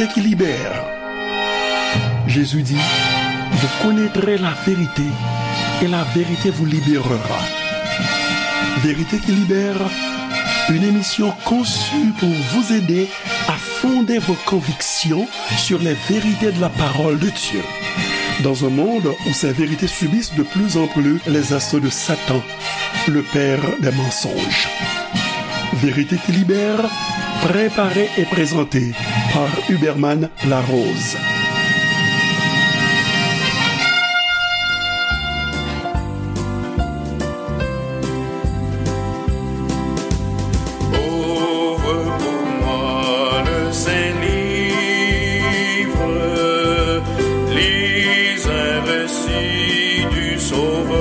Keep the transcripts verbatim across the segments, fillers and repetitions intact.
qui libère. Jésus dit, vous connaîtrez la vérité et la vérité vous libérera. Vérité qui libère, une émission conçue pour vous aider à fonder vos convictions sur les vérités de la parole de Dieu. Dans un monde où ces vérités subissent de plus en plus les assauts de Satan, le père des mensonges. Vérité qui libère, préparée et présentée par Huberman Larose. Ouvre pour moi le Saint-Livre, lis un récit du Sauveur.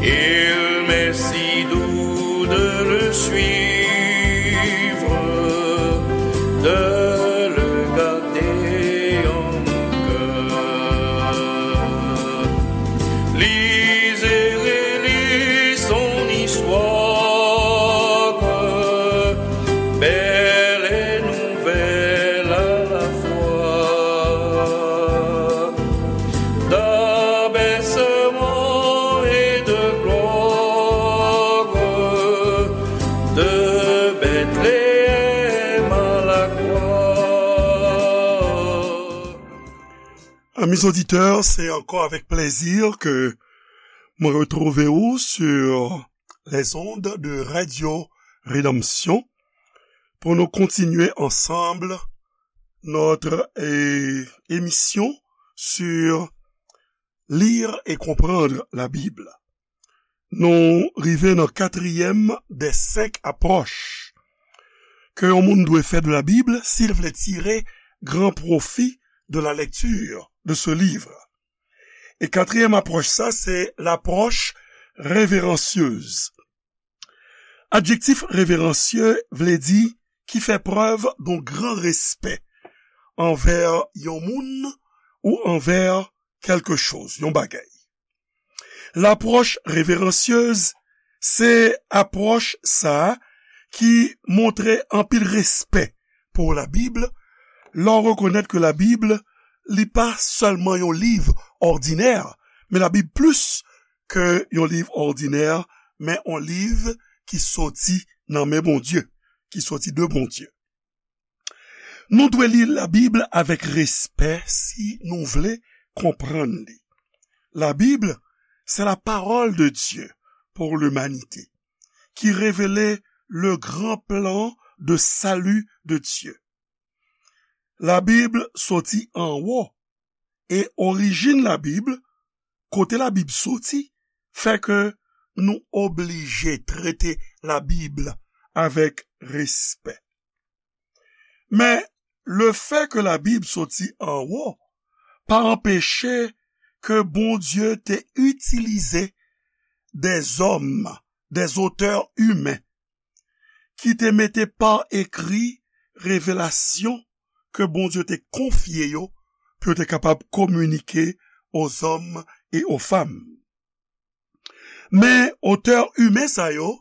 Il m'est si doux de le suivre, de le garder en mon cœur. Lis et relis son histoire, belle et nouvelle à la fois. D'abaissement et de gloire, de Bethléem à la croix. Amis auditeurs, c'est encore avec plaisir que mwen retwouve ou sur les ondes de Radio Rédemption pour nous continuer ensemble notre eh, émission sur lire et comprendre la Bible. Nou rive nan katriyèm dè senk apwòch ke yon moun dwe fè de la Bible si l vle tire gran pwofi de la lecture de ce livre. E katriyèm apwòch sa, se lapwòch reveransyez. Adjektif reveransyez vle di ki fè prèv d'un gran respè anvè yon moun ou anvè kèlke choz, yon bagay. Lapwòch reveransyez se apwòch sa a ki montre anpil respè pou Labib, lè w rekonèt ke Labib, li pa sèlman yon liv òdinè, men Labib plis ke yon liv òdinè, men yon liv ki soti nan men Bondye, ki soti de Bondye. Nou dwe li Labib avèk respè si nou vle konprann li. Labib, c'est la parole de Dieu pour l'humanité, qui révèle le grand plan de salut de Dieu. Labib soti anwo, e orijin Labib, kote Labib soti, fè ke nou oblije trete Labib avèk respè. Men, lefè ke Labib soti anwo pa anpeche ke Bondye te itilize dèzòm, dèzotè imen, ki te mete pa ekri revelasyon ke Bondye te konfye yo pou yo te kapab kominike aux hommes et aux femmes. Men otè imen sa yo,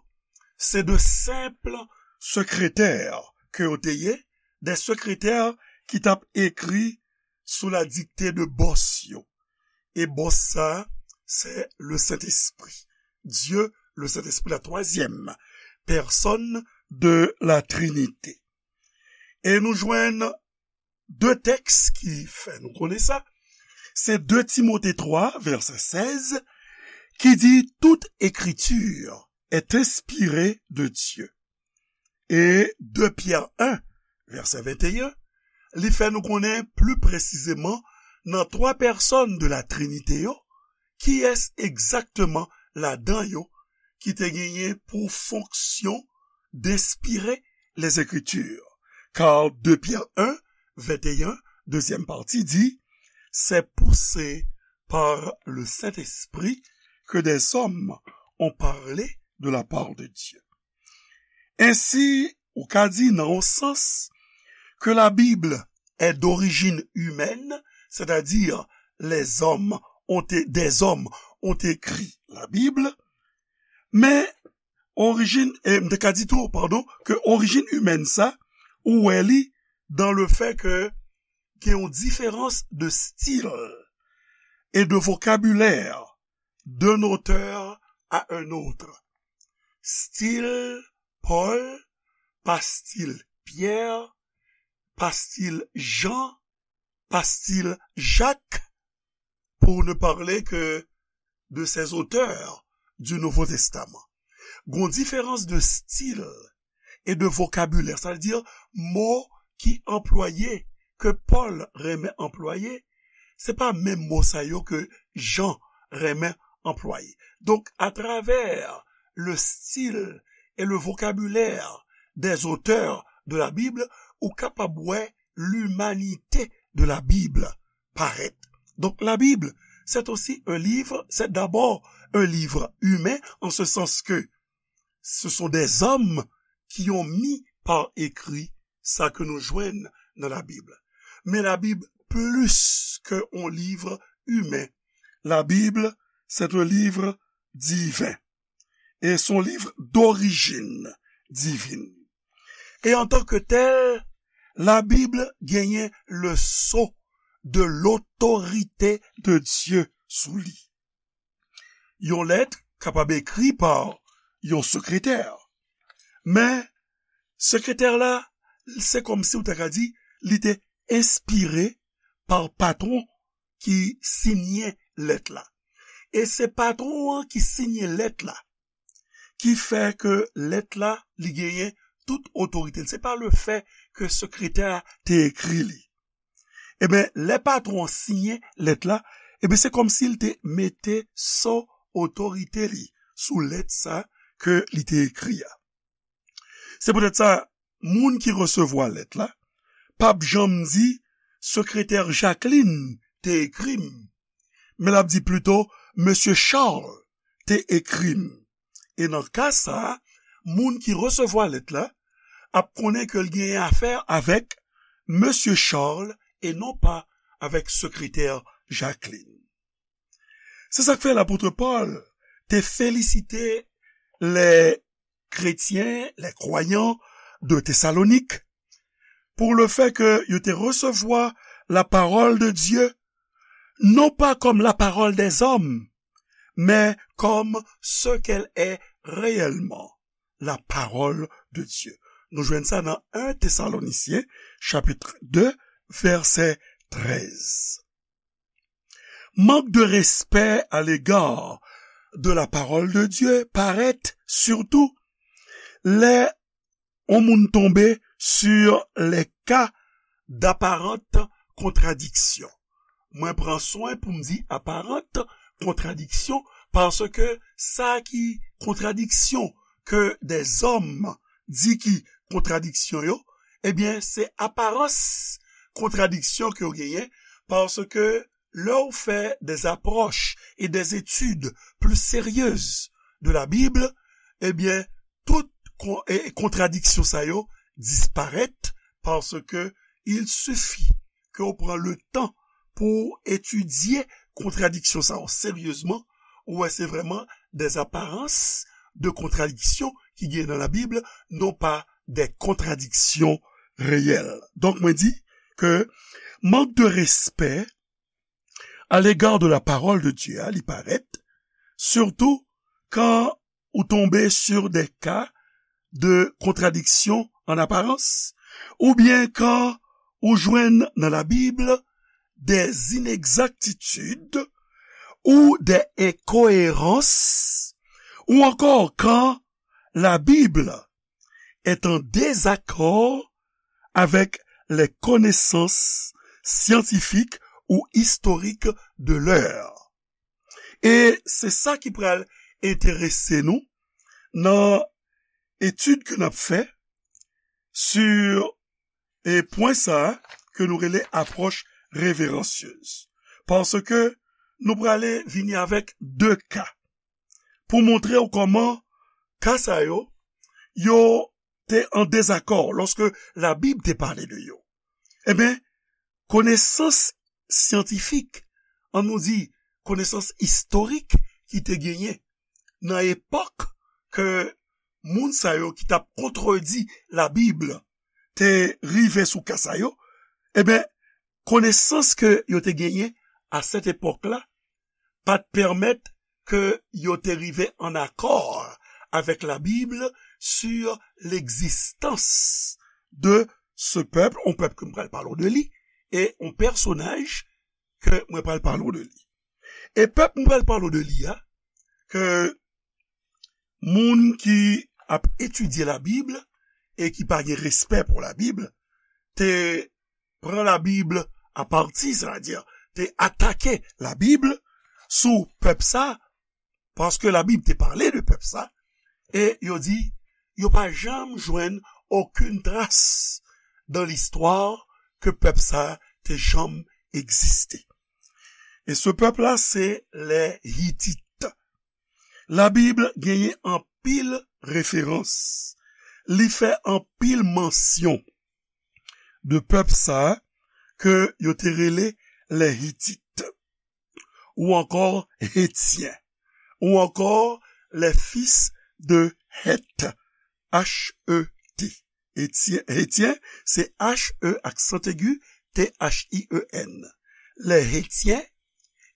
se de senp sekretè ke yo te ye, de sekretè ki t ap ekri sou la dikte de bòs yo. E bòs sa, se le Sentespri. Dye, le Sentespri, la twazyèm pèsòn de la Trinite. E nou jwenn de tèks ki fè nou konnen sa. Se de Timote twa, vèsè sèz, ki di, toute écriture est inspirée de Dieu. E de Pyè en, vèsè venteyen, li fè nou konnen pli presizeman nan twa pèsòn de la Trinite yo, kiyès egzakteman ladan yo ki te genyen pou fonksyon d'inspirer les Écritures. Car de Pierre un, vingt et un, deuxième partie, dit, c'est poussé par le Saint-Esprit que des hommes ont parlé de la part de Dieu. Ensi, ou ka di nan yon sans que la Bible est d'origine humaine, c'est-à-dire les hommes ont é- des hommes ont écrit la Bible, men orijin, e m te ka di tou, padon, ke orijin imèn sa, ou wè li dans le fait que gen yon diferans de style et de vocabulaire d'un auteur à un autre. Stil Pòl pa stil Pyè, pa stil Jan, pa stil Jak, pour ne parler que de ces auteurs du Nouveau Testament. Gon diferans de stil e de vokabilè, sa vle di mo ki anplwaye, ke Pòl renmen anplwaye, se pa menm mo sa yo ke Jan renmen anplwaye. Donk, atravè le style et le vocabulaire des auteurs de la Bible, ou kapab wè l'humanité de la Bible parèt. Donc la Bible, c'est aussi un livre, c'est d'abord un livre humain, en ce sens que ce sont des hommes qui ont mis par écrit sa ke nou jwenn nan la Bib. Men la Bib plis ke yon liv imen. La Bib, c'est un livre divin. Et c'est un livre d'origine divine. Et en tant que tel, la Bib genyen le sceau de l'autorité de Dieu sou li. Yon lèt kapab ekri pa yon sekretè. Men, sekretè la, se kòmsi w ta ka di, li te enspire pa patwon ki siyen lèt la. E se patwon an ki siyen lèt la, ki fè ke lèt la, li genyen tout otorite. Se pa le fè ke sekretè a te ekri li. Ebyen, lè patwon an siyen lèt la, ebyen, se kòmsi l te mete sceau otorite li sou lèt sa ke li te ekri a. Se poutèt sa, moun ki resevwa lèt la, p ap janm di, sekretè Jacqueline te ekri m, men l ap di plito, mesye Charles te ekri m. E nan ka sa a, moun ki resevwa lèt la ap konnen ke l genyen afè avèk mesye Charles e non pa avèk sekretè Jacqueline. Se sa k fè lapot Pòl te felisite les chrétiens, les croyants de Thessalonique, pour le fait que yo te resevwa la parole de Dieu, non pas comme la parole des hommes, mais comme ce qu'elle est réellement, la parole de Dieu. Nou jwenn sa nan un Thessaloniciens, chapitre deux, verset treize. Manque de respect à l'égard de la parole de Dieu parèt sitou lè yon moun tonbe sur les cas d'apparente contradiction. Mwen pran swen pou m di aparant kontradiksyon, paske sa ki kontradiksyon ke dèzòm di ki kontradiksyon yo, ebyen, se aparans kontradiksyon ke yo genyen, paske lè w fè des approches et des études plus sérieuses de la Bible, ebyen, tout kon-, e, kontradiksyon sa yo disparèt, paske il suffit ke w pran le tan pou etidye kontradiksyon sa yo seryezman, ou wè se vrèman des apparences de contradiction ki gen nan la Bib, non pa des contradictions réelles. Donk, mwen di ke mank de respè à l'égard de la parole de Dieu a, li parèt, sitou kan ou tonbe sur des cas de contradiction en apparence, oubyen kan ou jwenn nan la Bib des inexactitudes ou des incohérences, ou encore quand la Bible est en désaccord avec les connaissances scientifiques ou historiques de l'heure. E se sa ki pral enterese nou nan etid ke n ap fè sur e pwen sa a ke nou rele apwòch reveransyez. Paske nou prale vini avèk de ka pou montre w kòman ka sa yo, yo te an dezakò lòske Labib te pale de yo. Ebyen, konesans syantifik, an nou di, konesans istorik ki te genyen nan epòk ke moun sa yo ki t ap kontredi Labib te rive sou ka sa yo, ebyen, konesans ke yo te genyen a sèt epòk la pa t pèmèt ke yo te rive an akò avèk la Bible sur l'existence de ce peuple, yon pèp ke m pral pale w de li, e yon pèsonaj ke mwen pral pale w de li. E pèp mwen pral pale w de li a, ke moun ki ap etidye la Bib e ki pa gen respè pou la Bib, te pran la Bib a pati, sètadi te atake la Bib sou pèp sa, paske la Bib te pale de pèp sa, e yo di, yo pa janm jwenn okenn tras dan listwa ke pèp sa te janm egziste. E se pèp la, se lè Hitit. La Bib genyen anpil referans. Li fè anpil mansyon de pèp sa ke yo te rele lè Hitit, ou ankò Hetyen, ou ankò les fils de Heth, H E T. Hetyen, Hetyen, se H E aksan egi, T H I E N. Lè Hetyen,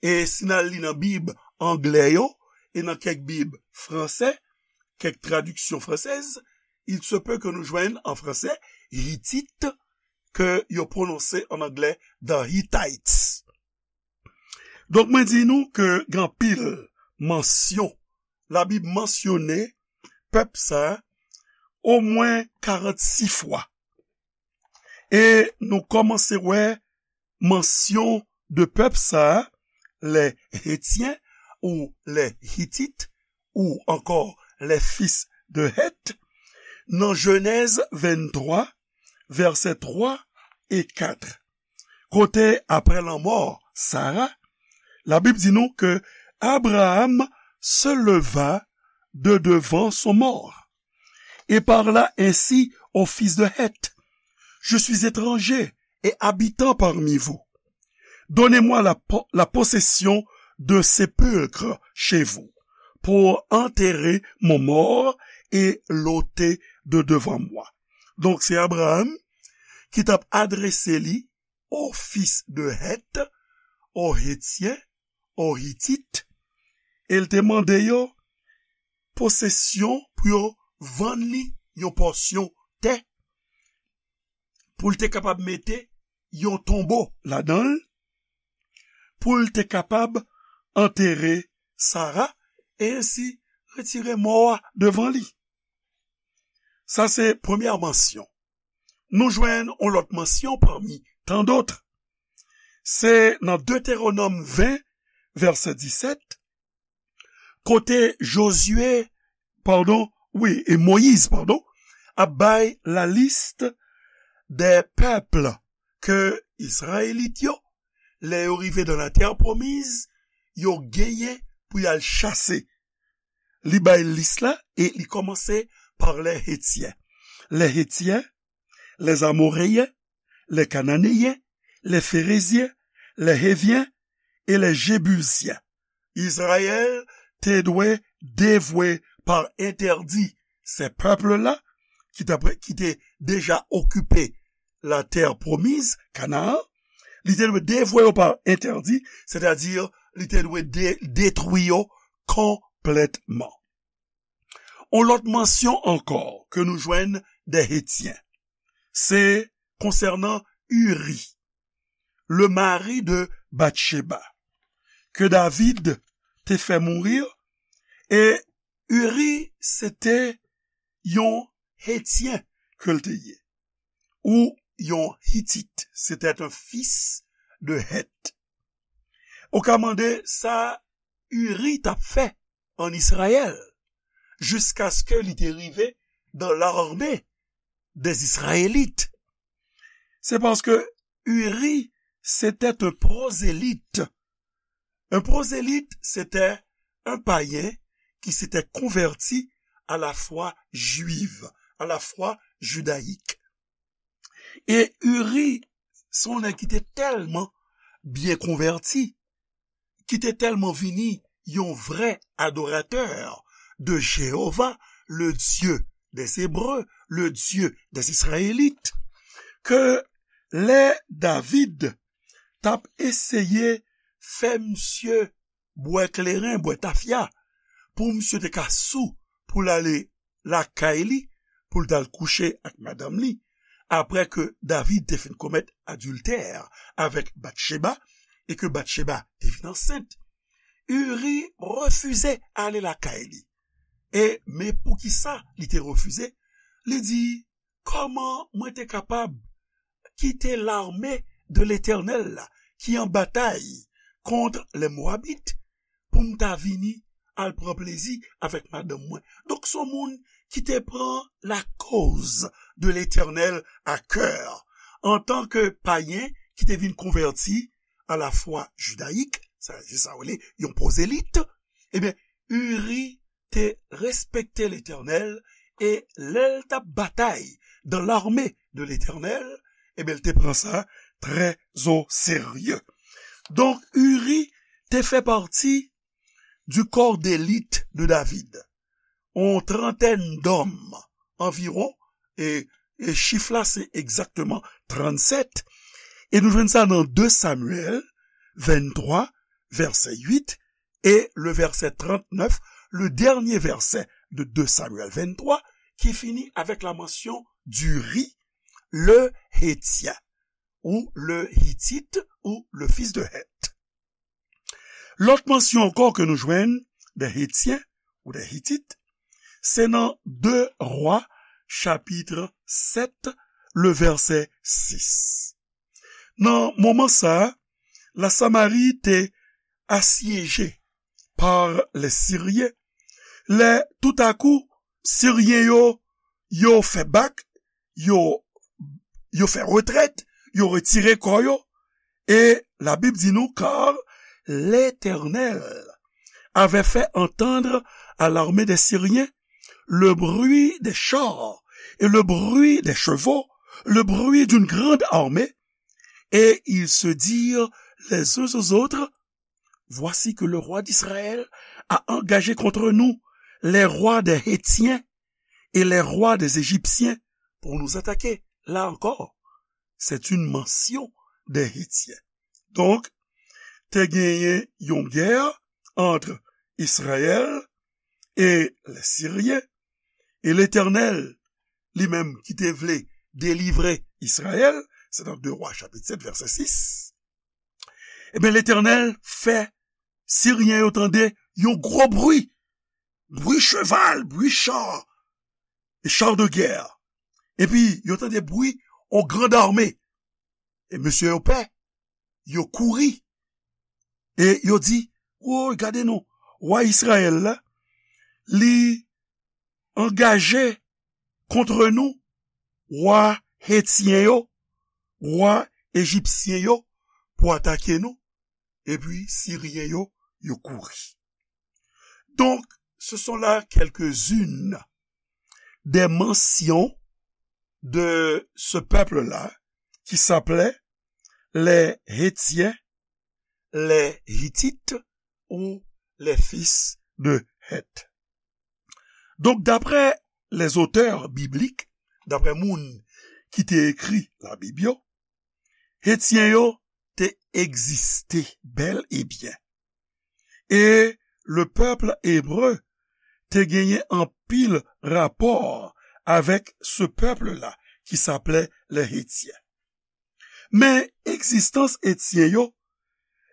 e si n al li nan Bib anglè yo, e nan kèk Bib fransè, kèk tradiksyon fransèz, il se peut que nou jwenn an fransè Hitit, ke yo pwononse an anglè the Hittites. Donk, mwen di nou ke gen anpil mansyon, la Bib mansyone pèp sa omwen karannsis fwa. E nou kòmanse wè mansyon de pèp sa, lè Hetyen ou lè Hitit, ou ankò les fils de Heth, nan Jenèz venntwa, vèsè twa e kat. Kote, apre lanmò Sara, la Bib di nou ke Abraham se leva de devant son mort et parla ainsi aux fils de Heth, je suis étranger et habitant parmi vous. Donnez-moi la, po- la possession d'un sépulcre chez vous pour enterrer mon mort et l'ôter de devant moi. Donk, se Abraham ki t ap adrese li aux fils de Heth, aux Hétiens, aux Hittites, e l te mande yo posesyon pou yo vann li yon pòsyon tè, pou l te kapab mete yon tonbo ladan l, pou l te kapab antere Sara, e ensi retire mò a devan li. Sa se premyè mansyon. Nou jwenn yon lòt mansyon pami tan dòt. Se nan Detewonòm ven, vèsè disèt, kote Jozye, padon, wi, e Moyiz, padon, ap bay la liste des peuples ke Izrayelit yo, lè yo rive dans la terre promise, yo genyen pou y al chase. Li bay lis la e li kòmanse par les Hétiens. Les Hétiens, les Amoréens, les Cananéens, les Phéréziens, les Héviens et les Jébusiens. Izrayèl te dwe devwe pa entèdi se pèp la ki t ap, ki te deja okipe la terre promise, Canaan, li te dwe devwe yo pa entèdi, sètadi li te dwe de, detwi yo konplètman. On lòt mansyon ankò ke nou jwenn des Hétiens, se konsènan Uri, le mari de Batcheba, ke David te fè mouri, e Uri se te yon Hetyen ke l te ye, ou yon Hitit, c'était un fils de Heth. Ou ka mande sa Uri t ap fè an Izrayèl, jiskaske li te rive dans l'armée des Israélites. Se paske Uri se te yon pwozèlit. Un prosélyte, c'était un païen qui s'était converti à la foi juive, à la foi judaïque. E Uri, se yon nèg ki te tèlman byen konvèti, ki te tèlman vini yon vrè adoratè de Jéhovah, le Dieu des Hébreux, le Dieu des Israélites, ke lè David t ap eseye fè misye bwè kleren, bwè tafya, pou misye te ka sou, pou l ale lakay li, pou l t al kouche ak madanm li, apre ke David te fin komèt adiltè avèk Batcheba, e ke Batcheba te vin ansent, Uri refize ale lakay li. E, men poukisa li te refize? Li di, kòman mwen te kapab kite l'armée de l'Éternel la, ki an batay kont les Moabites, pou m ta vini al pran plezi avèk madanm mwen? Donk, se yon moun ki te pran la cause de l'Éternel à cœur. Antanke payen ki te vin konvèti a la fwa jidayik, sa, se sa w rele yon pwozelit, ebyen, Uri te respekte Letènèl e lè l t ap batay dans l'armée de l'Éternel, ebyen, l te pran sa très au sérieux. Donk, Uri te fè pati du corps d'élite de David. On trantèn dòm anviwon, e, e chif la se egzakteman trannsèt, e nou jwenn sa nan de Samyèl venntwa, vèsè uit, e le vèsè trannèf, le dènye vèsè de de Samyèl venntwa, ki fini avèk la mansion d'Uri, le Hétien, ou le Hittite, ou le fils de Heth. Lòt mansion ankò ke nou jwenn de Hétien ou de Hitit, se nan de Wa, chapit sèt, le vèsè sis. Nan moman sa a, la Samari te asyeje par les Syriens. Lè toutakou, Siryen yo, yo fè bak, yo, yo fè retrèt, yo retire kò yo. E Labib di nou, car l'Éternel avait fait entendre à l'armée des Syriens le bruit des chars et le bruit des chevaux, le bruit d'une grande armée. Et ils se dirent les uns aux autres, voici que le roi d'Israël a engagé contre nous les rois des Hétiens et les rois des Égyptiens pour nous attaquer. Là encore, c'est une mention des Hétiens. Donk, te genyen yon gè ant Izrayèl e Lesiryen, e Letènèl, li menm ki te vle delivre Izrayèl, se nan de Wa chapit sèt vèsè sis, ebyen, Letènèl fè Siryen yo tande yon gwo bri, bri cheval, bri cha, e cha de guerre. Epi, yo tande bri yon grand armée. E mesye yo pè, yo kouri. E yo di, woy, gade non, wa Izrayèl la, li angaje kont nou, wa Hetyen yo, wa Ejipsyen yo, pou atake nou. Epi Siryen yo, yo kouri. Donc, ce sont là quelques-unes des mentions de ce peuple-là qui s'appelait les Hétiens, les Hittites ou les fils de Heth. Donk, daprè les auteurs bibliques, daprè moun ki te ekri Labib yo, Hetyen yo te egziste bèl e byen. E le pèp ebre te genyen anpil rapò avèk se pèp la ki s'appelait les Hétiens. Men egzistans Etyen yo,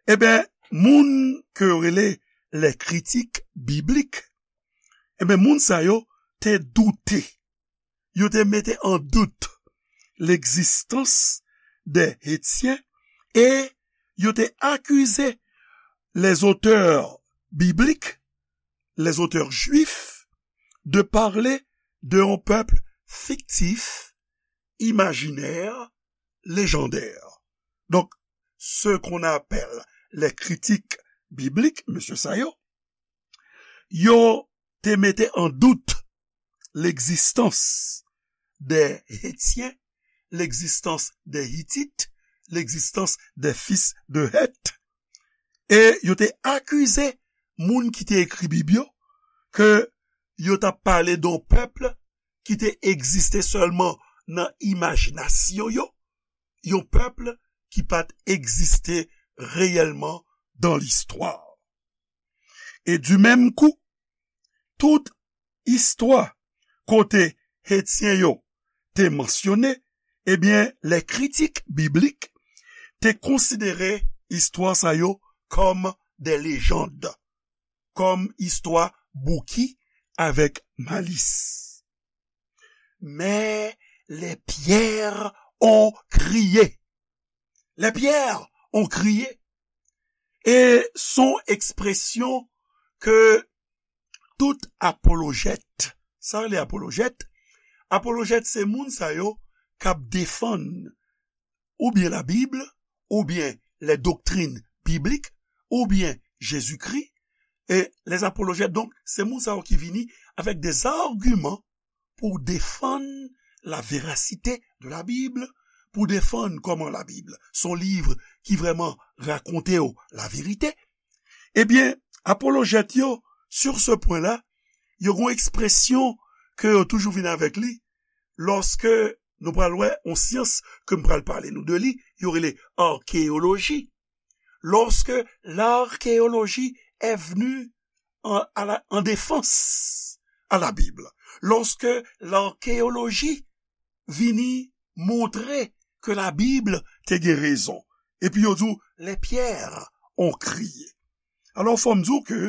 ebyen, moun ke yo rele les critiques bibliques, ebyen, moun sa yo te doute. Yo te mete an dout l'existence des Hétiens e yo te akize les auteurs bibliques, les auteurs juifs, de parler de un peuple fictif, imaginaire, légendaire. Donc, ce qu'on appelle les critiques bibliques, mesye sa yo, yo te mete an dout l'existence des Hétiens, l'existence des Hittites, l'existence des fils de Heth. E yo te akize moun ki te ekri Bib yo ke yo t ap pale de yon pèp ki te egziste sèlman nan imajinasyon yo, yon pèp ki pa t egziste reyèlman dan listwa. E di menm kou, tout istwa kote Etyen yo te mansyone, ebyen, lè kritik biblik te konsidere istwa sa yo kòm de lejann, kòm istwa bouki avèk malis. Mais les pierres ont crié. Les pierres ont crié. E se yon ekspresyon ke tout apolojèt, sa rele apolojèt, apolojèt se moun sa yo k ap defann oubyen Labib, oubyen les doctrines bibliques, oubyen Jezikri. E les apolojèt, donk, se moun sa yo ki vini avèk des arguments pou defann la véracité de la Bible, pou defann kòman Labib se yon liv ki vrèman rakonte w laverite. Ebyen, apolojèt yo, sur ce point-là, yo gen yon ekspresyon ke yo toujou vin avèk li, lòske nou pral wè yon syans ke m pral pale nou de li, yo rele akeyoloji. Lorsque l'archéologie est venue en, à la, en défense à la Bible, lorsque l'archéologie vini montre ke Labib te gen rezon, epi yo di w, les pierres ont crié. Alò, fò m di w ke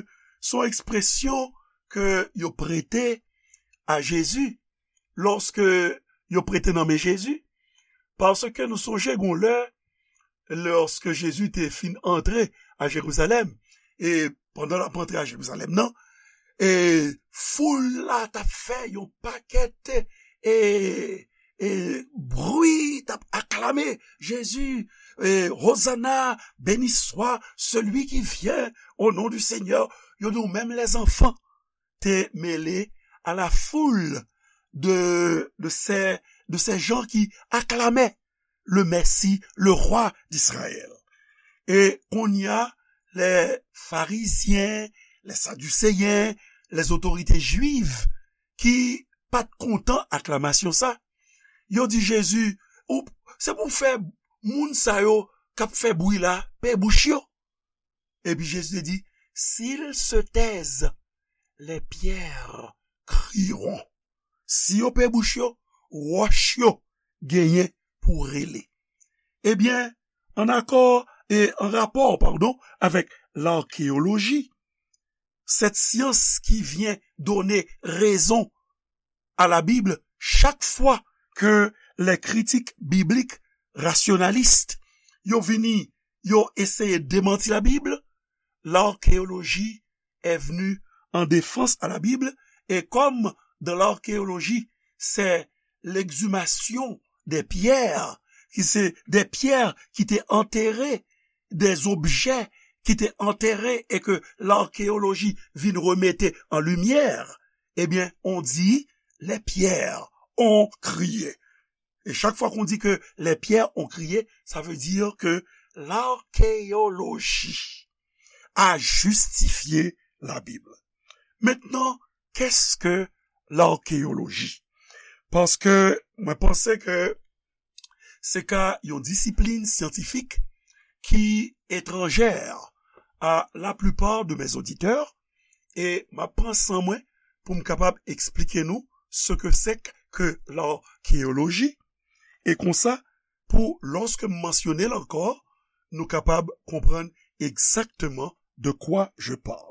se yon ekspresyon ke yo prete a Jezi, lòske yo prete nan men Jezi, paske nou sonje gon lè, lòske Jezi te fin antre a Jerizalèm, e pandan l ap antre a Jerizalèm nan, e foul la t ap fè yon pakèt, e, e bri, t ap aklame Jezi, e, Hosanna, béni soit celui qui vient au nom du Seigneur. Yo di w menm lèzanfan te mele à la foule de, de ces, de ces gens qui acclamaient le Messie, le roi d'Israël. E kounye a, les pharisiens, les sadducéens, les autorités juives ki pa t kontan aklamasyon sa, yo di Jezi, ou, se pou fè moun sa yo k ap fè bri la, pe bouch yo. Epi Jezi te di, s'ils se taisent, les pierres crieront. Si yo pe bouch yo, wòch yo genyen pou rele. Ebyen, an akò e an rapò, padon, avèk lakeyoloji, cette science qui vient donner raison à la Bible, chaque fois que les critiques bibliques rationalistes yo vini, yo eseye demanti Labib, l'archéologie est venue en défense à la Bible, et comme dans l'archéologie, c'est l'exhumation des pierres, ki se de pyè ki te antere, des objets ki te antere e ke lakeyoloji vin remete an limyè, ebyen, on dit, les pierres ont crié. E chak fwa ke on di ke les pierres ont crié, sa vle di ke lakeyoloji a jistifye Labib. Mentnan, qu'est-ce que l'archéologie? Paske mwen panse ke se ka yon disiplin syantifik ki etranjè a la plupart de mes auditeurs, e m ap pran san mwen pou m kapab eksplike nou ce que c'est que l'archéologie, e konsa, pou, lòske m mansyone l ankò, nou kapab konprann egzakteman de quoi je parle.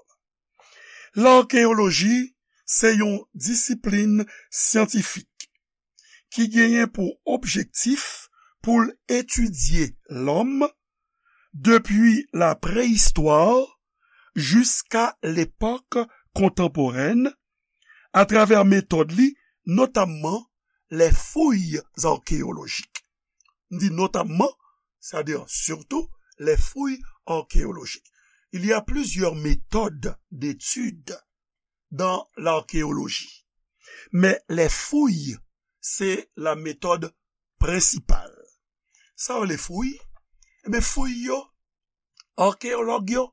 Lakeyoloji se yon disiplin syantifik ki genyen pou objektif pou l etidye lòm depi la preyistwa jiska lepòk kontanporèn, atravè metòd li, notamman les fouilles archéologiques. M di notamman, c'est-à-dire surtout, les fouilles archéologiques. Il y a plusieurs méthodes d'étude dans l'archéologie. Mais les fouilles, c'est la méthode principale. Sa yo rele fouy? Ebyen, fouy yo, akeyològ yo,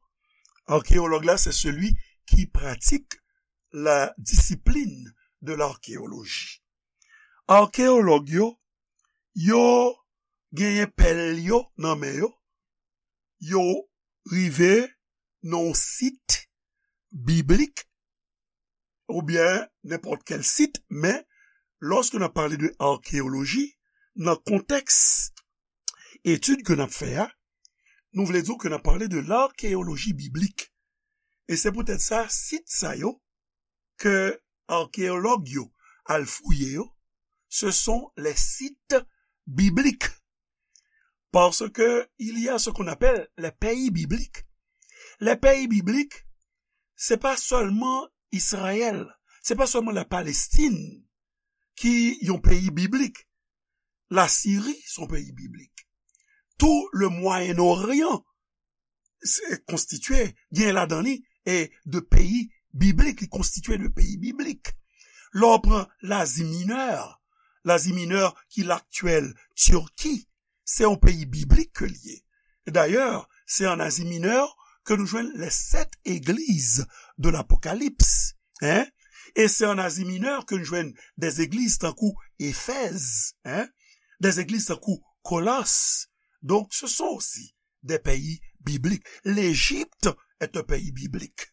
akeyològ la, c'est celui qui pratique la discipline de l'archéologie. Akeyològ yo, yo genyen pèl yo nan men yo, yo rive nan yon sit biblik, oubyen nenpòt kèl sit, men lòske n ap pale de akeyoloji, nan kontèks etid ke n ap fè a, nou vle di ke n ap pale de lakeyoloji biblik. E se poutèt sa, sit sa yo, ke akeyològ yo al fouye yo, ce sont les sites bibliques. Parce que il y a ce qu'on appelle les pays bibliques. Les pays bibliques, se pa sèlman Izrayèl, se pa sèlman la Palestine ki yon peyi biblik. La Siri se yon peyi biblik. Tout le Moyen-Orient se konstitye, gen ladan li, e de peyi biblik, li konstitye de peyi biblik. Lè w pran Lazi Minè, Lazi Minè ki laktyèl Tiki, se yon peyi biblik ke l ye. Dayè, se an Azi Minè ke nou jwenn les sept églises de l'Apocalypse. Hein? E se an Azi Minè ke nou jwenn des églises tankou Éphèse, hein? Des églises tankou Colosses. Donc, ce sont aussi des pays bibliques. L'Égypte est un pays biblique.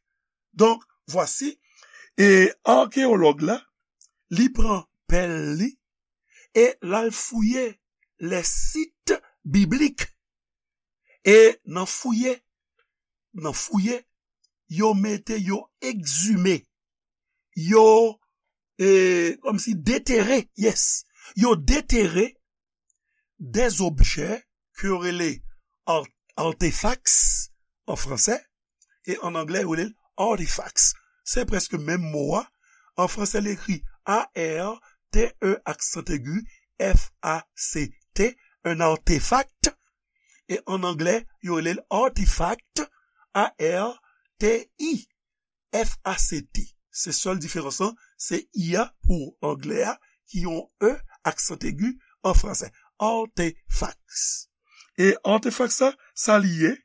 Donc, voici. E akeyològ la, li pran pèl li, e l al fouye les sites bibliques. E nan fouye, nan fouye, yo mete, yo egzime, yo, e, kòmsi detere, yes, yo detere des objets ke yo rele ar-, artefacts an fransè, e an anglè, yo rele l artifacts. Se prèske menm mo a. An fransè, li ekri A R T E aksan egi F A C T, un artefact. E an anglè, yo rele l artifact, A R T I F A C T. Se sèl diferans lan, se I a pou anglè a, ki yon E aksan egi an fransè. Artefacts. E artefacts sa, sa li ye?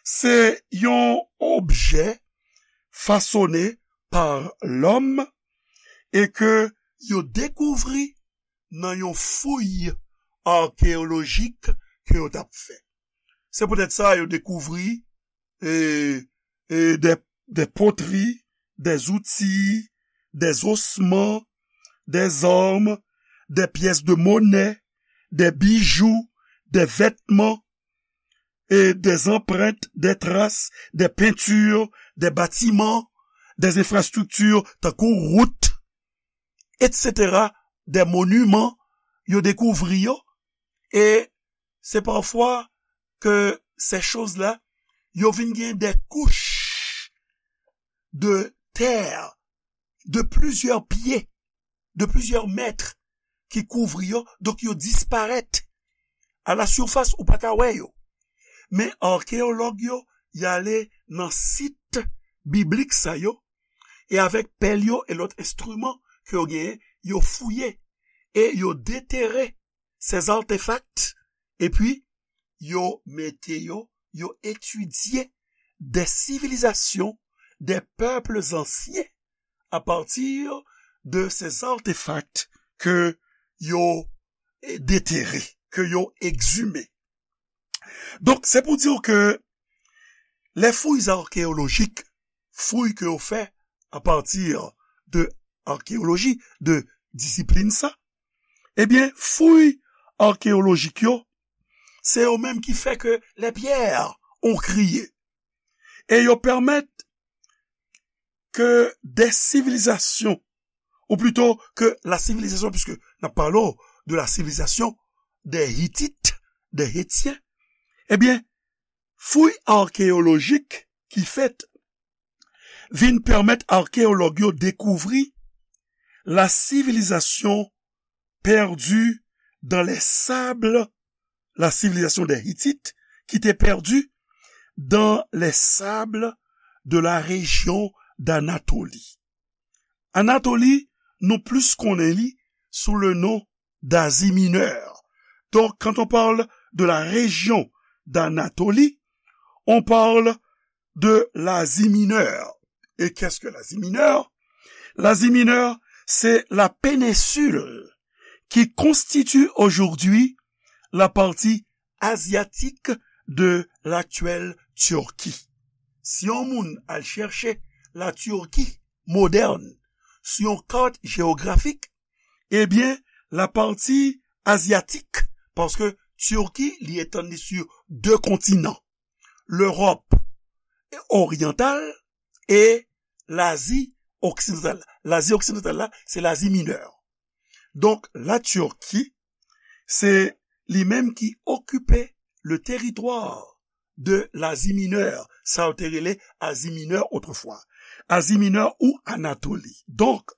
Se yon objè fasonnen pa lòm e ke yo dekouvri nan yon fouy akeyolojik ke yo t ap fè. Se poutèt sa yo dekouvri, e, e, des, des poteries, des outils, des ossements, des armes, des pièces de monnaie, des bijoux, des vêtements, et des empreintes, des traces, des peintures, des bâtiments, des infrastructures, tankou wout, et cetera, des monuments, yo dekouvri yo, e se pafwa ke ces choses-là, yo vin gen des couches de terre de plusieurs pieds, de plusieurs mètres, ki kouvri yo, donk yo disparèt. À la surface, ou pa ka wè yo. Men akeyològ yo, y ale nan sit biblik sa yo, e avèk pèl yo e lòt enstriman ke yo genyen, yo fouye e yo detere ces artefacts, epi yo mete yo, yo etidye des civilisations, des peuples anciens à partir de ces artefacts ke yo, eh, detere, ke yo egzime. Donk, se pou di w ke les fouilles archéologiques, fouy ke yo fè à partir de archéologie, de disiplin sa, ebyen, fouy akeyolojik yo, se yo menm ki fè ke les pierres ont crié. E yo pèmèt ke des civilisations, ou plutôt que la civilisation, puisque n ap pale de la civilisation des Hittites, des Hétiens, ebyen, fouy akeyolojik ki fèt vin pèmèt akeyològ yo dekouvri la civilisation perdue dans les sables, la civilisation des Hittites, qui était perdue dans les sables de la région d'Anatolie. Anatoli, nou plis konnen li sou le non d'Asie Mineure. Donc, quand on parle de la région d'Anatolie, on parle de l'Asie Mineure. Et qu'est-ce que l'Asie Mineure? L'Asie Mineure, c'est la péninsule qui constitue aujourd'hui la partie asiatique de l'actuelle Turquie. Si yon moun al chèche la Turquie moderne sur yon carte géographique, ebyen, la partie asiatique, paske Turquie li etann li sur deux continents, l'Europe orientale et l'Asie occidentale. L'Asie occidentale la, c'est l'Asie mineure. Donc, la Turquie, c'est lui-même qui occupait le territoire de l'Asie mineure. Sa yo te rele Asie mineure autrefois. Asie mineure ou Anatolie. Donc,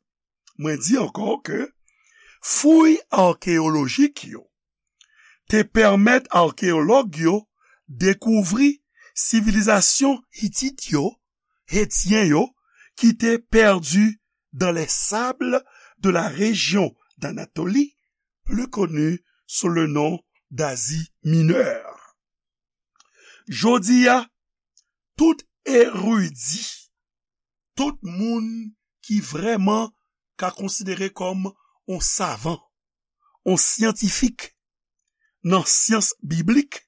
mwen di ankò ke fouy akéyolojik yo te pèmèt akéyològ yo dekouvri sivilizasyon Hitit yo, Hetyen yo, ki te pèdi dans les sables de la région d'Anatolie, plus connue sous le nom d'Asie mineure. Jodi a, tout eridi, tout moun ki vrèman ka konsidere kòm yon savan, yon syantifik nan syans biblik,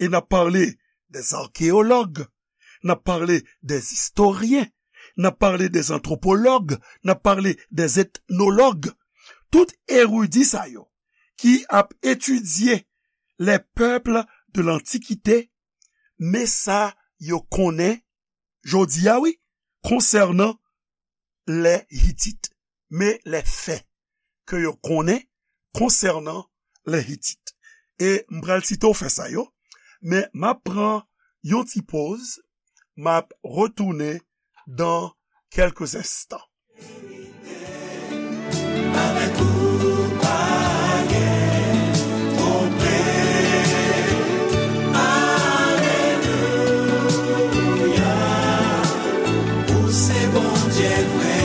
e n ap pale dèz akéyològ, n ap pale dèz istoryen, n ap pale dèz antwopològ, n ap pale dèz etnològ. Tout eridi sa yo ki ap etidye les peuples de l'Antiquité, men sa yo konnen jodi a, wi, konsènan lè Hitit, men lè fè ke yo konnen konsènan lè Hitit. E m pral site w fè sa yo, men m ap pran yon ti poz, m ap retounen dans quelques instants. Avèk ou pa gen pwoblèm. Alelouya. Ou se Bondye vre.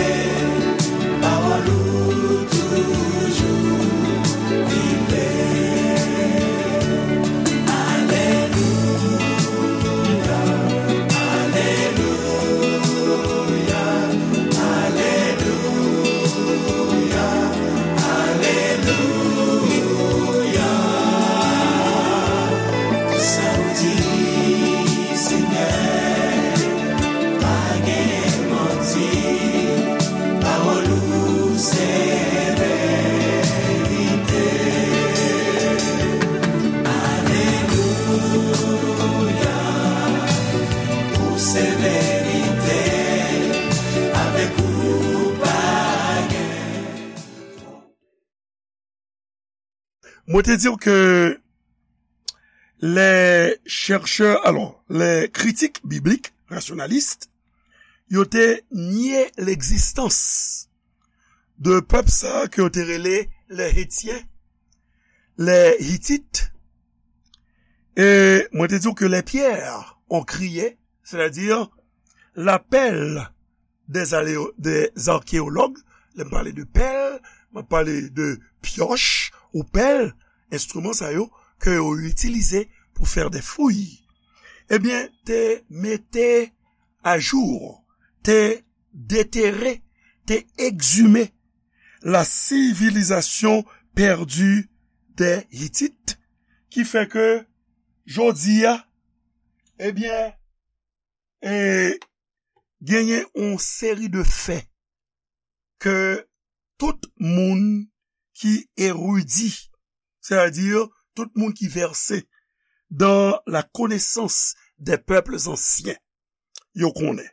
Pawòl ou toujou vivan. Alelouya. Alelouya. Alelouya, alelouya. Sa w di, Senyè, pa gen manti. Pawòl ou se verite. Alelouya. Ou se verite, avèk ou pa gen. Mwen te di w ke les chercheurs, alors, les critiques bibliques rationalistes, yo te nye legzistans de pèp sa a ke yo te rele les Hétiens, les Hittites. E mwen te di w ke les pierres ont crié, c'est-à-dire la pelle des aléo-, des archéologues, lè m pale de pèl, m ap pale de pyòch ou pèl, enstriman sa yo ke yo itilize pour faire des fouilles. Ebyen, te mete ajou, te detere, te egzime la civilisation perdue des Hittites, ki fè ke jodi a, ebyen, e genyen yon seri de fè ke tout moun ki eridi, c'est-à-dire tout moun ki vèse dans la connaissance des peuples anciens, yo konnen.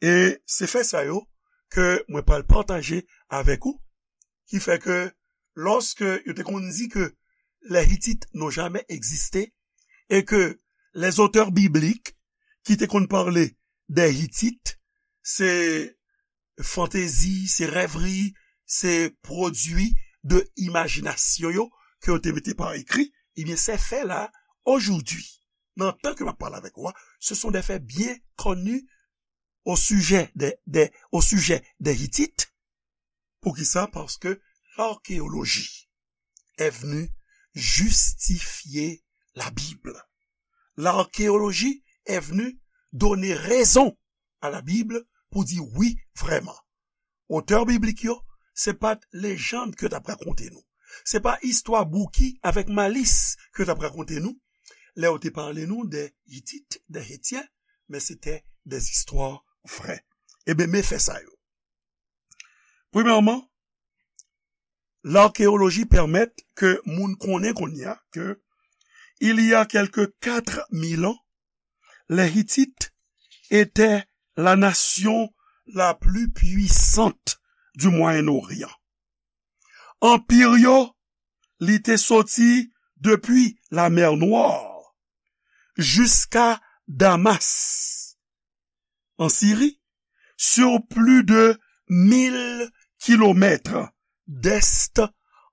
E se fè sa yo ke mwen pral pataje avèk ou, ki fè ke lòske yo te konn di ke les Hittites n'ont jamais existé, et que les auteurs bibliques ki te konn pale des Hittites, se fantezi, se rèvri, se pwodui de imajinasyon yo ke yo te mete pa ekri, ebyen, ces faits-là, aujourd'hui, nan tan ke m ap pale avèk ou a, ce sont des faits bien connus au sujet des, des, au sujet des Hittites. Poukisa? Parce que l'archéologie est venue justifier la Bible. L'archéologie est venue donner raison à la Bible pou di wi, vrèman. Otè biblik yo, se pa t lejann ke yo t ap rakonte nou. Se pa istwa bouki avèk malis ke yo t ap rakonte nou lè yo te pale nou de Hitit, de Hetyen, men se te de zistwa vrè. Ebyen, men fè sa yo. Premyèman, l'archéologie permet ke moun konnen kounye a ke il y a quelque quatre mille ans, les Hittites étaient la nation la plus puissante du Moyen-Orient. Anpir yo, li te soti depi la mer Noire jusqu'à Damas, en Syrie, sur plus de mille kilomètres d'est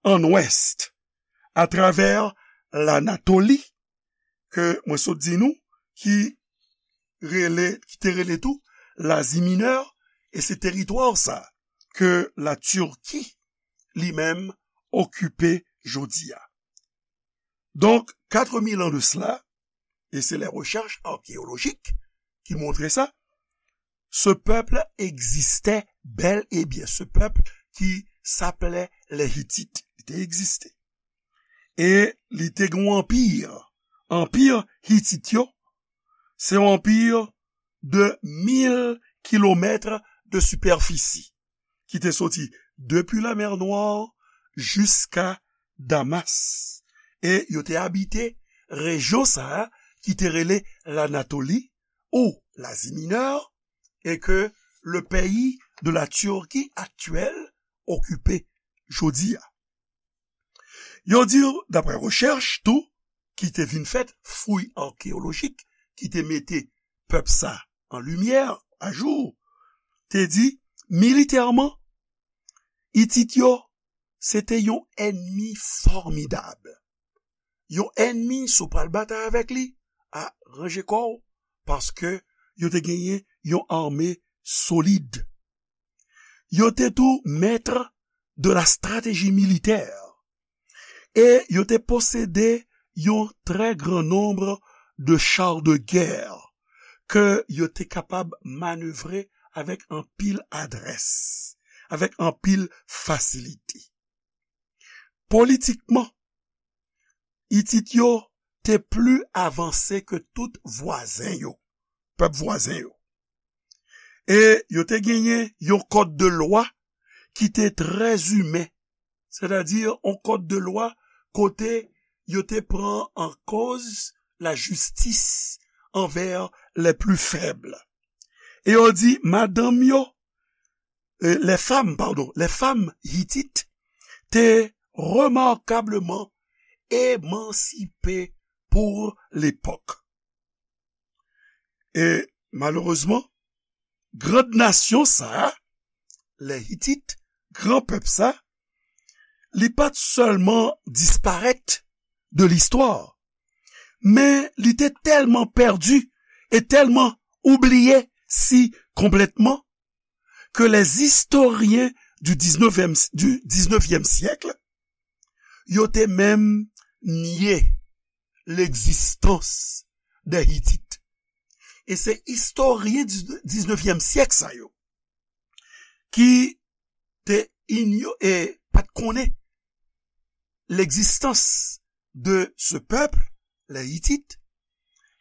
en ouest, à travers l'Anatolie, ke mwen sot di nou, ki rele, ki te rele tou Lazi Minè, e se teritwa sa ke la Turquie li menm okipe jodi a. Donc, quatre mille ans de cela, et c'est les recherches archéologiques qui montrent ça, ce peuple existait bel et bien, ce peuple qui s'appelait les Hittites, li te egziste. E li te gen yon anpir. Anpir Hitit yo, se yon anpir de mil kilomèt de sipèfisi ki te soti depi la mer Noire jusqu'à Damas. E yo te abite rejyon sa a ki te rele l'Anatolie ou l'Asie Mineure, et que le pays de la Turquie actuelle okipe jodi a. Yo di, daprè rechèch tou, ki te vin fèt, fouy akeyolojik, ki te mete pèp sa an limyè, ajou, te di, militèman, Itit yo, se te yon ènmi fòmidab. Yon ènmi, si w pral batay avèk li, a, ranje kò w, paske yo te genyen yon ame solid. Yo te tou maître de la stratégie militaire. E yo te posede yon très grand nombre de chars de guerre ke yo te kapab manevre avèk anpil adrès, avèk anpil fasilite. Politikman, Itit yo te pli avanse ke tout vwazen yo, pèp vwazen yo. E yo te genyen yon kòd de lwa ki te trè imen, sètadi yon kòd de lwa kote yo te pran an koz lajistis anvè les plus faibles. E yo di, madanm yo, euh, les femmes, pardon, les femmes hitites te remarkableman emansipe pou lepòk. E malerezman, grann nasyon sa a, les Hitit, gran pèp sa, li pa t sèlman disparèt de listwa, men li te tèlman pèdi e tèlman oubliye si konplètman ke les historiens du dix-neuvième, du dix-neuvième siècle, yo te menm nye l'existence des Hittites. E se istoryen diznèvyèm syèk sa yo ki te inyo-, e pa t konnen l'existence de ce peuple, les Hittites,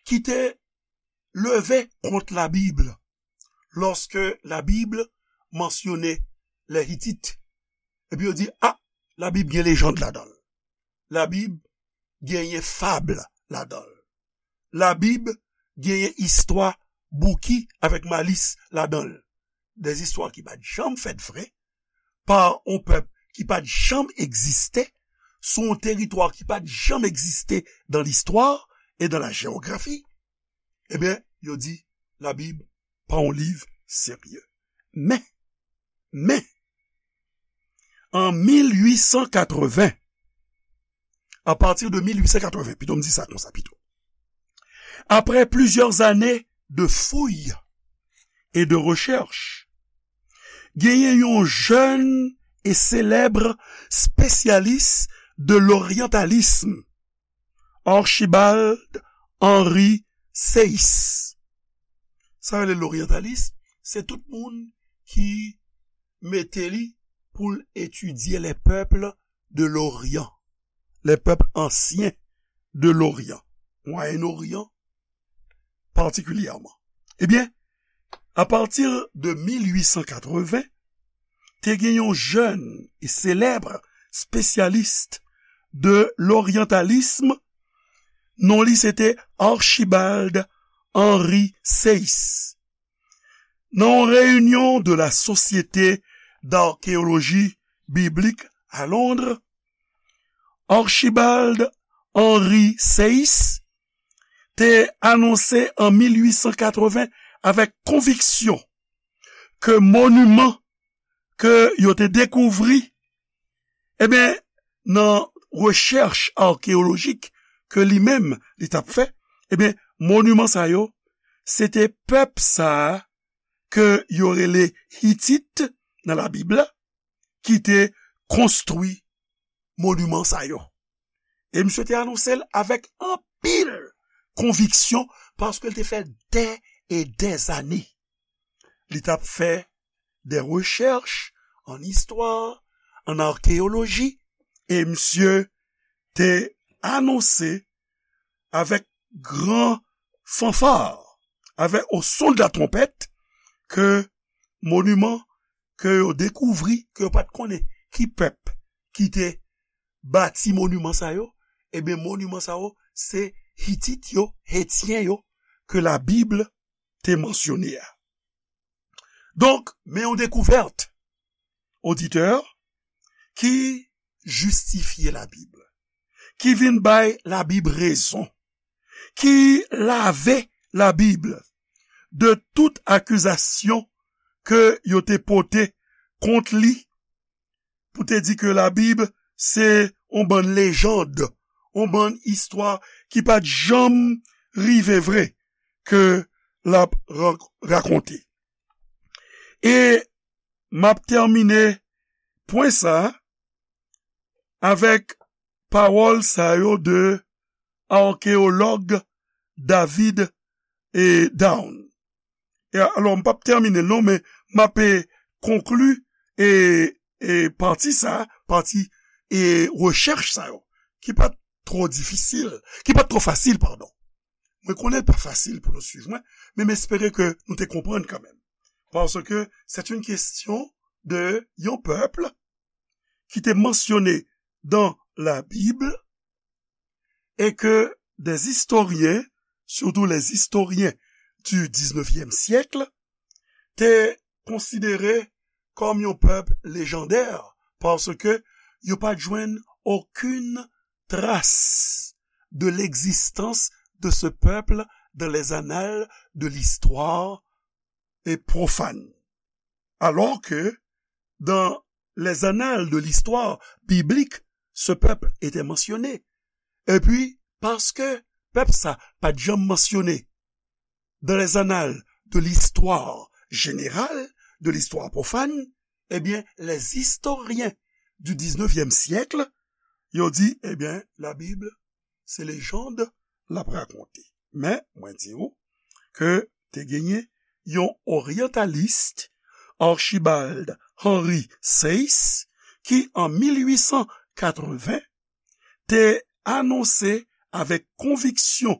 ki te leve kont la Bible lorsque la Bible mentionne les Hittites. Epi yo di, ah, la Bib gen lejand ladan l. La Bib genyen fab ladan l. La Bib genyen istwa bouki avèk malis ladan l. Des histoires ki pa t janm fèt vre, pa yon pèp ki pa t janm egziste, sou yon teritwa ki pa t janm egziste dans l'histoire et dans la géographie. Ebyen, yo di, la Bib pa yon liv serye. Men, men, an mil uit san katreven, à partir de mil uit san katreven, pito m di sa konsa pito. Après plusieurs années de fouilles et de recherches, genyen yon jèn e selèb espesyalis de l'orientalisme, Archibald Henry Sayce. Sa yo rele l'orientalisme, se tout moun ki mete li pou l etidye les peuples de l'Orient, les peuples anciens de l'Orient, Moyen-Orient particulièrement. Ebyen, apati de mil uit san katreven, te gen yon jèn e selèb espesyalis de l'orientalisme, non li se te Archibald Henry Sayce. Nan yon reyinyon de la Société d'archéologie biblique à Londres, Archibald Henry Sayce te anonse an mil uit san katreven avèk konviksyon ke moniman ke yo te dekouvri, ebyen, nan rechèch akeyolojik ke li menm li t ap fè, ebyen, moniman sa yo, se te pèp sa a ke yo rele Hitit nan Labib la, ki te konstwi moniman sa yo. E misye te anonse l avèk anpil konviksyon, paske l te fè dè e dè zane. Li t ap fè de rechèch an istwa, an akeyoloji, e misye te anonse avèk gran fanfa, avèk o son de la tronpèt, ke moniman ke yo dekouvri, ke yo pa t konnen ki pèp ki te bati moniman sa yo, ebyen, moniman sa yo, se Hitit yo, Etyen yo, ke Labib te mansyone a. Donk, men yon dekouvèt, oditè, ki jistifye Labib, ki vin bay Labib rezon, ki lave Labib de tout akizasyon ke yo te pote kont li, pou te di ke Labib se yon bann lejand, yon bann istwa ki pa t janm rive vre ke l ap rak-, rakonte. E m ap tèmine pwen sa a avèk pawòl sa yo de akeyològ David e Down. E alò, m p ap tèmine l non, men m ap, e, konkli, e, e, pati sa, pati, e, rechèch sa yo, ki pa t twò difisil, ki pa t twò fasil, padon. Mwen konnen l pa fasil pou nou swiv mwen, men m espere ke nou te konprann kanmenm. Paske c'est une question de yon pèp ki te mansyone dans la Bible et que des historiens, surtout les historiens du dix-neuvième siècle, te konsidere kòm yon pèp lejandè, paske yo pa t jwenn okenn tras de l'existence de ce peuple dans les annales de l'histoire et profane. Alors que dans les annales de l'histoire biblique, ce peuple était mentionné. Epi, paske pèp sa pa t janm mansyone dans les annales de l'histoire générale, de l'histoire profane, ebyen, les historiens du dix-neuvième siècle, yo di, ebyen, Labib, se lejand l ap rakonte. Men, mwen di w ke te genyen yon oryantalis, Archibald Henry Sayce, ki an mil uit san katreven te anonse avèk konviksyon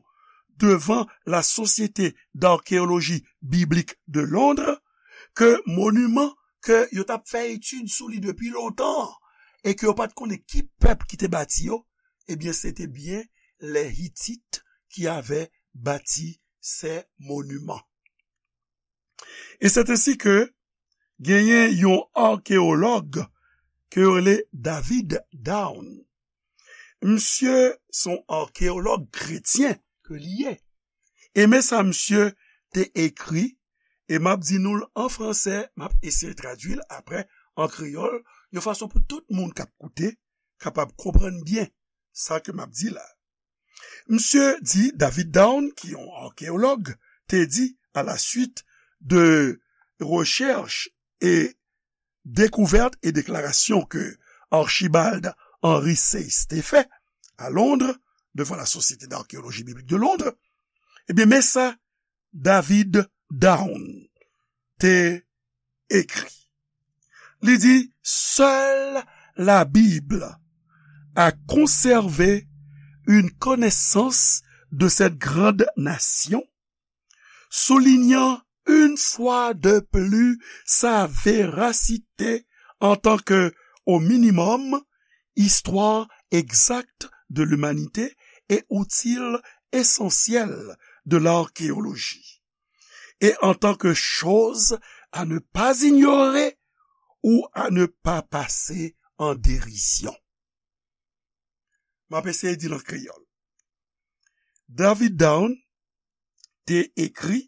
devan la Société d'archéologie biblique de Londres ke moniman ke yo t ap fè etid sou li depi lontan e ke yo pa t konnen ki pèp ki te bati yo, ebyen, se te byen les Hittites qui avaient bâti ces monuments. Et c'est ainsi que genyen yon akeyològ ke yo rele David Down. Misye se yon akeyològ kretyen ke li ye. E men sa misye te ekri, e m ap di nou l an fransè, m ap eseye tradui l apre an kreyòl, yon fason pou tout moun k ap koute kapab konprann byen sa ke m ap di la. Misye di, David Down, ki yon akeyològ, te di, à la suite de recherches et découvertes et déclarations que Archibald Henry Sayce te fè à Londres, devant la Société d'archéologie biblique de Londres, ebyen, men sa David Down te ekri. Li di, seule la Bible à conserver une connaissance de cette grande nation, soulignant une fois de plus sa véracité en tant que, au minimum, histoire exacte de l'humanité et outil essentiel de l'archéologie, et en tant que chose à ne pas ignorer ou à ne pas passer en dérision. M ap eseye di l an kreyòl. David Down te ekri,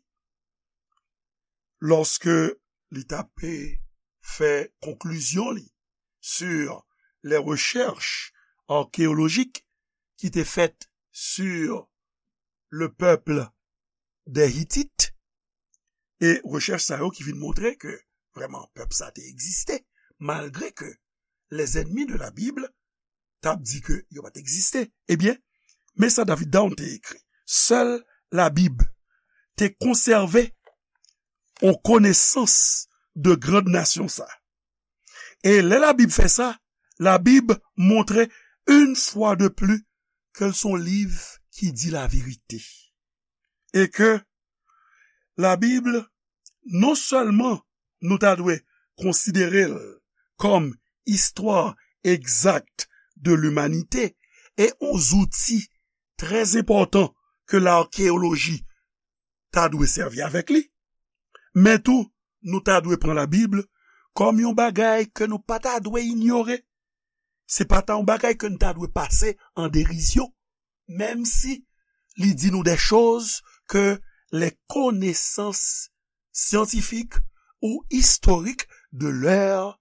lòske li t ap fè konklizyon li sur les recherches archéologiques qui étaient faites sur le peuple des Hittites, e rechèch sa yo ki vin montre ke vrèman pèp sa te egziste, malgre ke les ennemis de la Bible t ap di ke yo pa t egziste. Ebyen, men sa David Down te ekri: Seule la Bible te konsève yon konesans de grande nation sa. E lè la Bib fè sa, la Bib montre une fois de plus ke l se yon liv ki di laverite. E ke la Bib, non sèlman nou ta dwe konsidere l kòm histoire exacte de l'humanité e yon zouti trè enpòtan ke lakeyoloji ta dwe sèvi avèk li, men tou nou ta dwe pran la Bib kòm yon bagay ke nou pa ta dwe inyore. Se pa ta yon bagay ke nou ta dwe pase an derizyon, menm si li di nou des choses que les connaissances scientifiques ou historiques de l'heure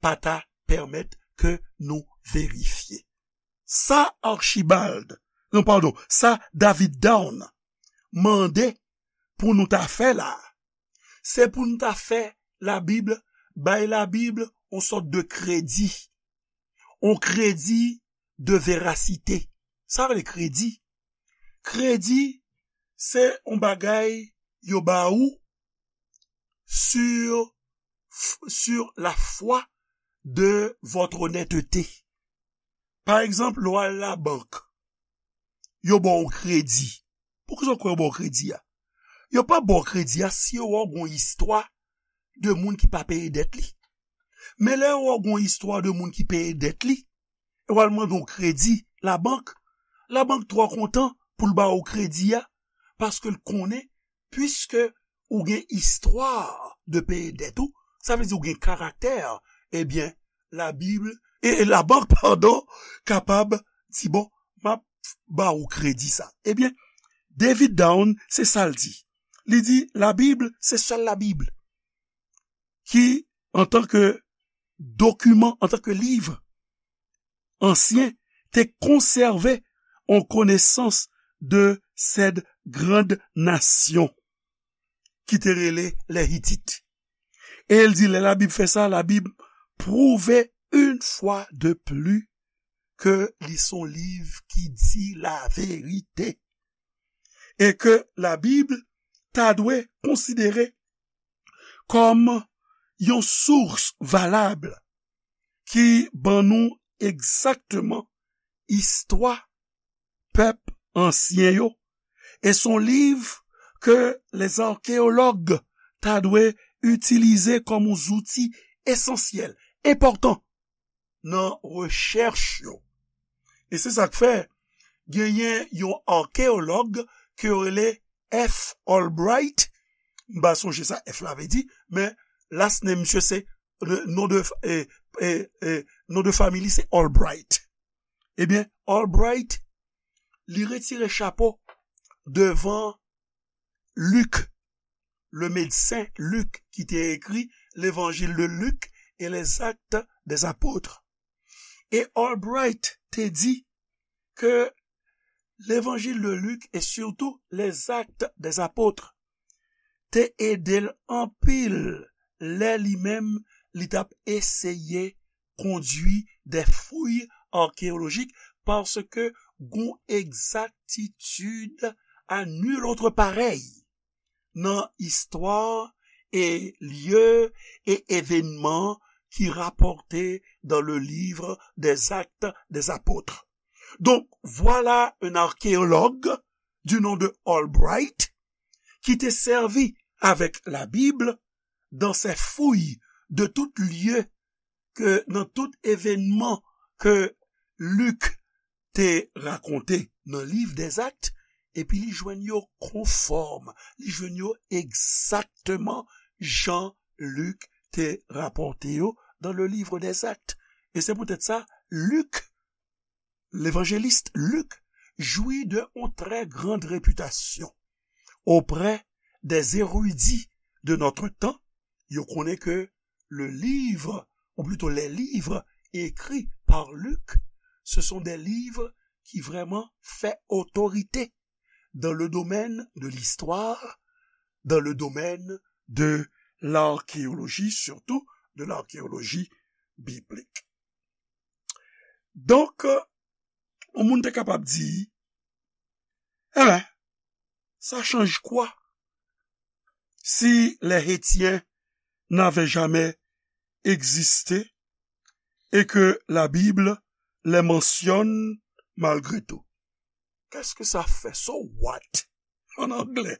pa ta pèmèt ke nou verifye. Sa Archibald, non, padon, sa David Down mande pou nou ta fè la, se pou nou ta fè la Bib, bay la Bib yon sòt de kredi, yon kredi de verasite. Sa vle kredi? Kredi, se yon bagay yo ba ou sur, sur la foi de votre honnêteté. Pa egzanp, lè w al labank, yo ba w kredi. Poukisa w kwè yo ba w kredi a? Yo pa ba w kredi a si yo wè w gen yon istwa de moun ki pa peye dèt li. Men lè yo wè w gen yon istwa de moun ki peye dèt li, e w al mande yon kredi labank, labank twò kontan pou l ba w kredi a, paske l konnen, piske ou gen istwa de peye dèt ou, sa vle di ou gen karaktè, ebyen, la Bib, e, e labank, padon, kapab di, bon, m ap ba ou kredi sa. Ebyen, David Down, se sa l di. Li di, la Bib, se sèl la Bib ki, antanke dokiman, antanke liv ansyen, te konsève yon konesans de cette grande nation ki te rele les Hittites. E l di, lè la Bib fè sa, la Bib pwouve une fois de plus ke li se yon liv ki di laverite. E ke la Bib ta dwe konsidere kòm yon sous valab ki ban nou egzakteman istwa pèp ansyen yo. E se yon liv ke lèzakeyològ ta dwe itilize kòm yon zouti esansyèl, enpòtan nan rechèch yo. E se sa k fè, genyen yon akeyològ ke yo rele F. Albright. M pa sonje sa F la vle di, men last name misye se, non de, e, e, e, non de fanmi li se Albright. Ebyen, Albright, li retire chapo devan Lik, le medsen Lik ki te ekri Levanjil de Lik e les Actes des Apôtres. E Albright te di ke Levanjil de Lik e sitou les Actes des Apôtres te ede l anpil lè li menm li t ap eseye kondui des fouilles archéologiques, paske gon egzaktitid à nul autre pareil nan istwa e lye e evènman qui rapportée dans le livre des Actes des Apôtres. Donc, voilà un archéologue du nom de Albright qui te servi avec la Bible dans ses fouilles de tout lieu ke nan tout evènman ke Lik te rakonte nan liv dèzak, epi li jwenn yo konfòm, li jwenn yo egzakteman jan Lik te rapòte yo dans le livre des Actes. E se poutèt sa, Lik, levanjelis Lik, jwi de yon trè grand repitasyon oprè des érudits de notre temps. Yo konnen ke le livre, ou plutôt les livres écrits par Luc, ce sont des livres qui vraiment fait autorité dans le domaine de l'histoire, dans le domaine de l'archéologie, surtout de l'archéologie biblique. Donk, yon moun te kapab di, eh ben, ça change quoi si les Hétiens n'avaient jamais existé et que la Bible les mentionne malgré tout? Qu'est-ce que ça fait? So what? En anglais.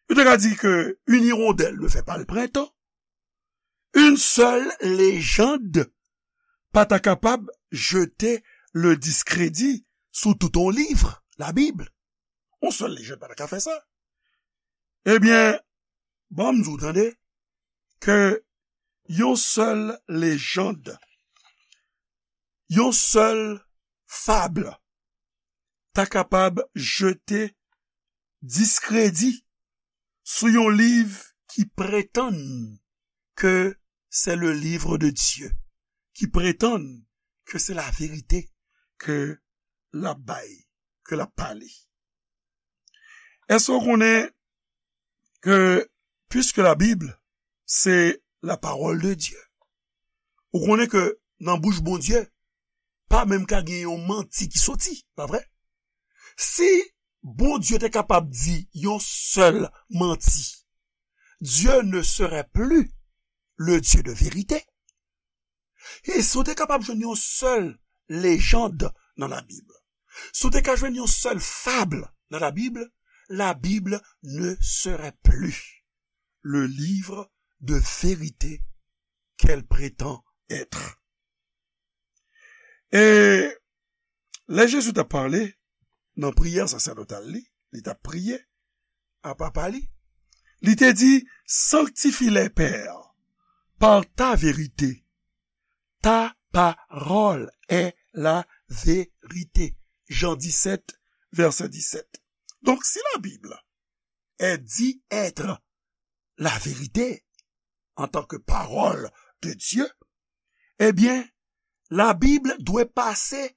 Yo te ka di ke une hirondelle ne fait pas le printemps. Une seule légende pa ta kapab jete le discrédit sou tout yon liv, Labib. Yon sèl lejann pa ta ka fè sa. Ebyen, ban m di w tande, ke yon sèl lejann, yon sèl fab ta kapab jete diskredi sou yon liv ki pretann ke c'est le livre de Dieu, ki pretann ke se laverite ke l ap bay, ke l ap pale. Èske w konnen ke, puiske la Bib se la parole de Dieu, ou konnen ke nan bouch Bondye, pa menm ka gen yon manti ki soti, pa vre? Si Bondye te kapab di yon sèl manti, Dieu ne serait plus le Dieu de vérité. E si w te kapab jwenn yon sèl lejann nan Labib, si w te ka jwenn yon sèl fab nan Labib, la Bible ne serait plus le livre de vérité qu'elle prétend être. E lè Jezi t ap pale nan priyè sasèdotal li, li t ap priye a Papa li, li te di, sanctifie-les, Père, par ta vérité. Ta parole est la vérité. Jan disèt, vèsè disèt. Donk, si la Bible est dit être la vérité en tant que parole de Dieu, ebyen, la Bible dwe pase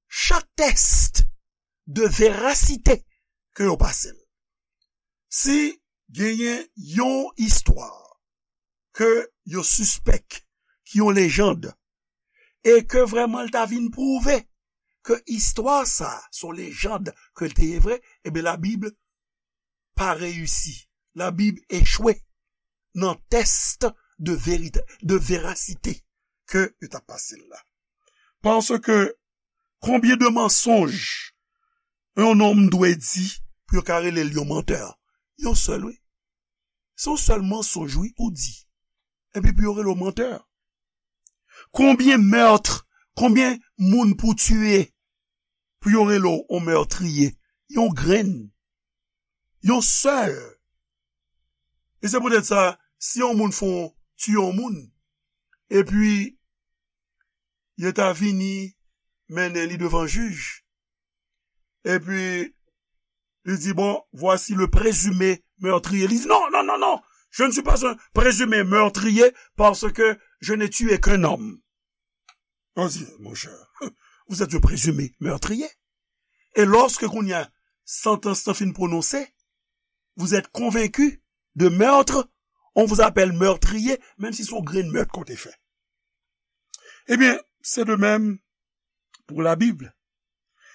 chak tès de verasite ke yo pase l. Si genyen yon istwa ke yo sispèk ki yon lejann, e ke vrèman l ta vin pwouve ke istwa sa a se yon lejann, ke l te ye vre, ebyen, la Bible pa reyisi. La Bible echwe nan tès de verite, de verasite ke yo t ap pase l la. Paske konbyen de mansonj yon nonm dwe di pou yo ka rele l yon mantè? Yon sèl, wi. Se yon sèl mansonj, wi, ou di. Epi pou yo rele w mantè. Konbyen mèt, konbyen moun pou tiye pou yo rele w yon mètriye? Yon grenn. Yon sèl. E se poutèt sa, si yon moun fè yon, tiye yon moun, epi yo ta vini mennen li devan jij, epi li di, bon, voici le présumé meurtrier. Li di, non, non, non, non, je ne suis pas un présumé meurtrier parce que je n'ai tué qu'un homme. On dit, mon cher, vous êtes un présumé meurtrier. Et lorsque kounye a santans lan fin pwononse, vous êtes convaincu de meurtre, on vous appelle meurtrier, menm si se yon grenn mèt ke w te fè. Ebyen, se de menm pou la Bible.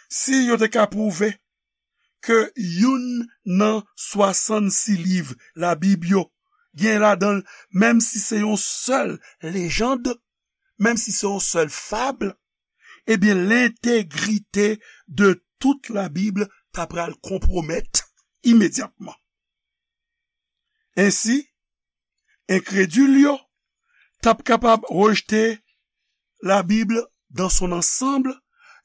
Si yo te ka pwouve ke youn nan swasannsis liv la Bible yo gen ladan l, menm si se yon sèl lejand, menm si se yon sèl fab, ebyen, lentegrite de tout Labib ta pral konpwomèt imedyatman. Ensi, enkredil yo t ap kapab rejte Labib dans son ensemble,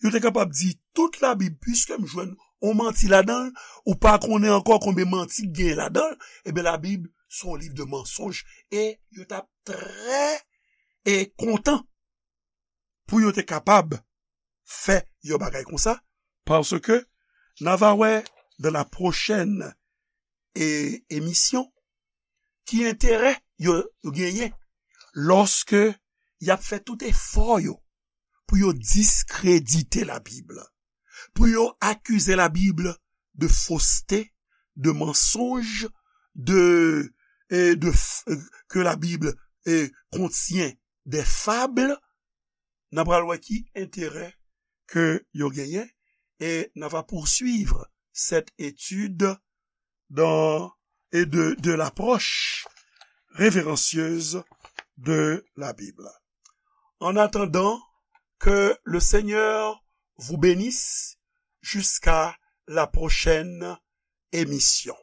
yo te kapab di tout Labib, piske m jwenn yon manti ladan l, ou pa konnen ankò konbyen manti k genyen ladan l, ebyen, Labib se yon liv de mansonj, e yo t ap trè, e kontan pou yo te kapab fè yon bagay konsa, paske n a va wè dans la prochaine e, emisyon ki enterè yo, yo genyen lòske y ap fè tout efò yo pou yo diskredite Labib, pou yo akize Labib de fausseté, de mensonge, de, e de f- que la Bible e, contient des fables, n a pral wè ki enterè ke yo genyen, et n a va poursuivre cette étude dans, et de, de l'approche révérencieuse de la Bible. En attendant, que le Seigneur vous bénisse jusqu'à la prochaine émission.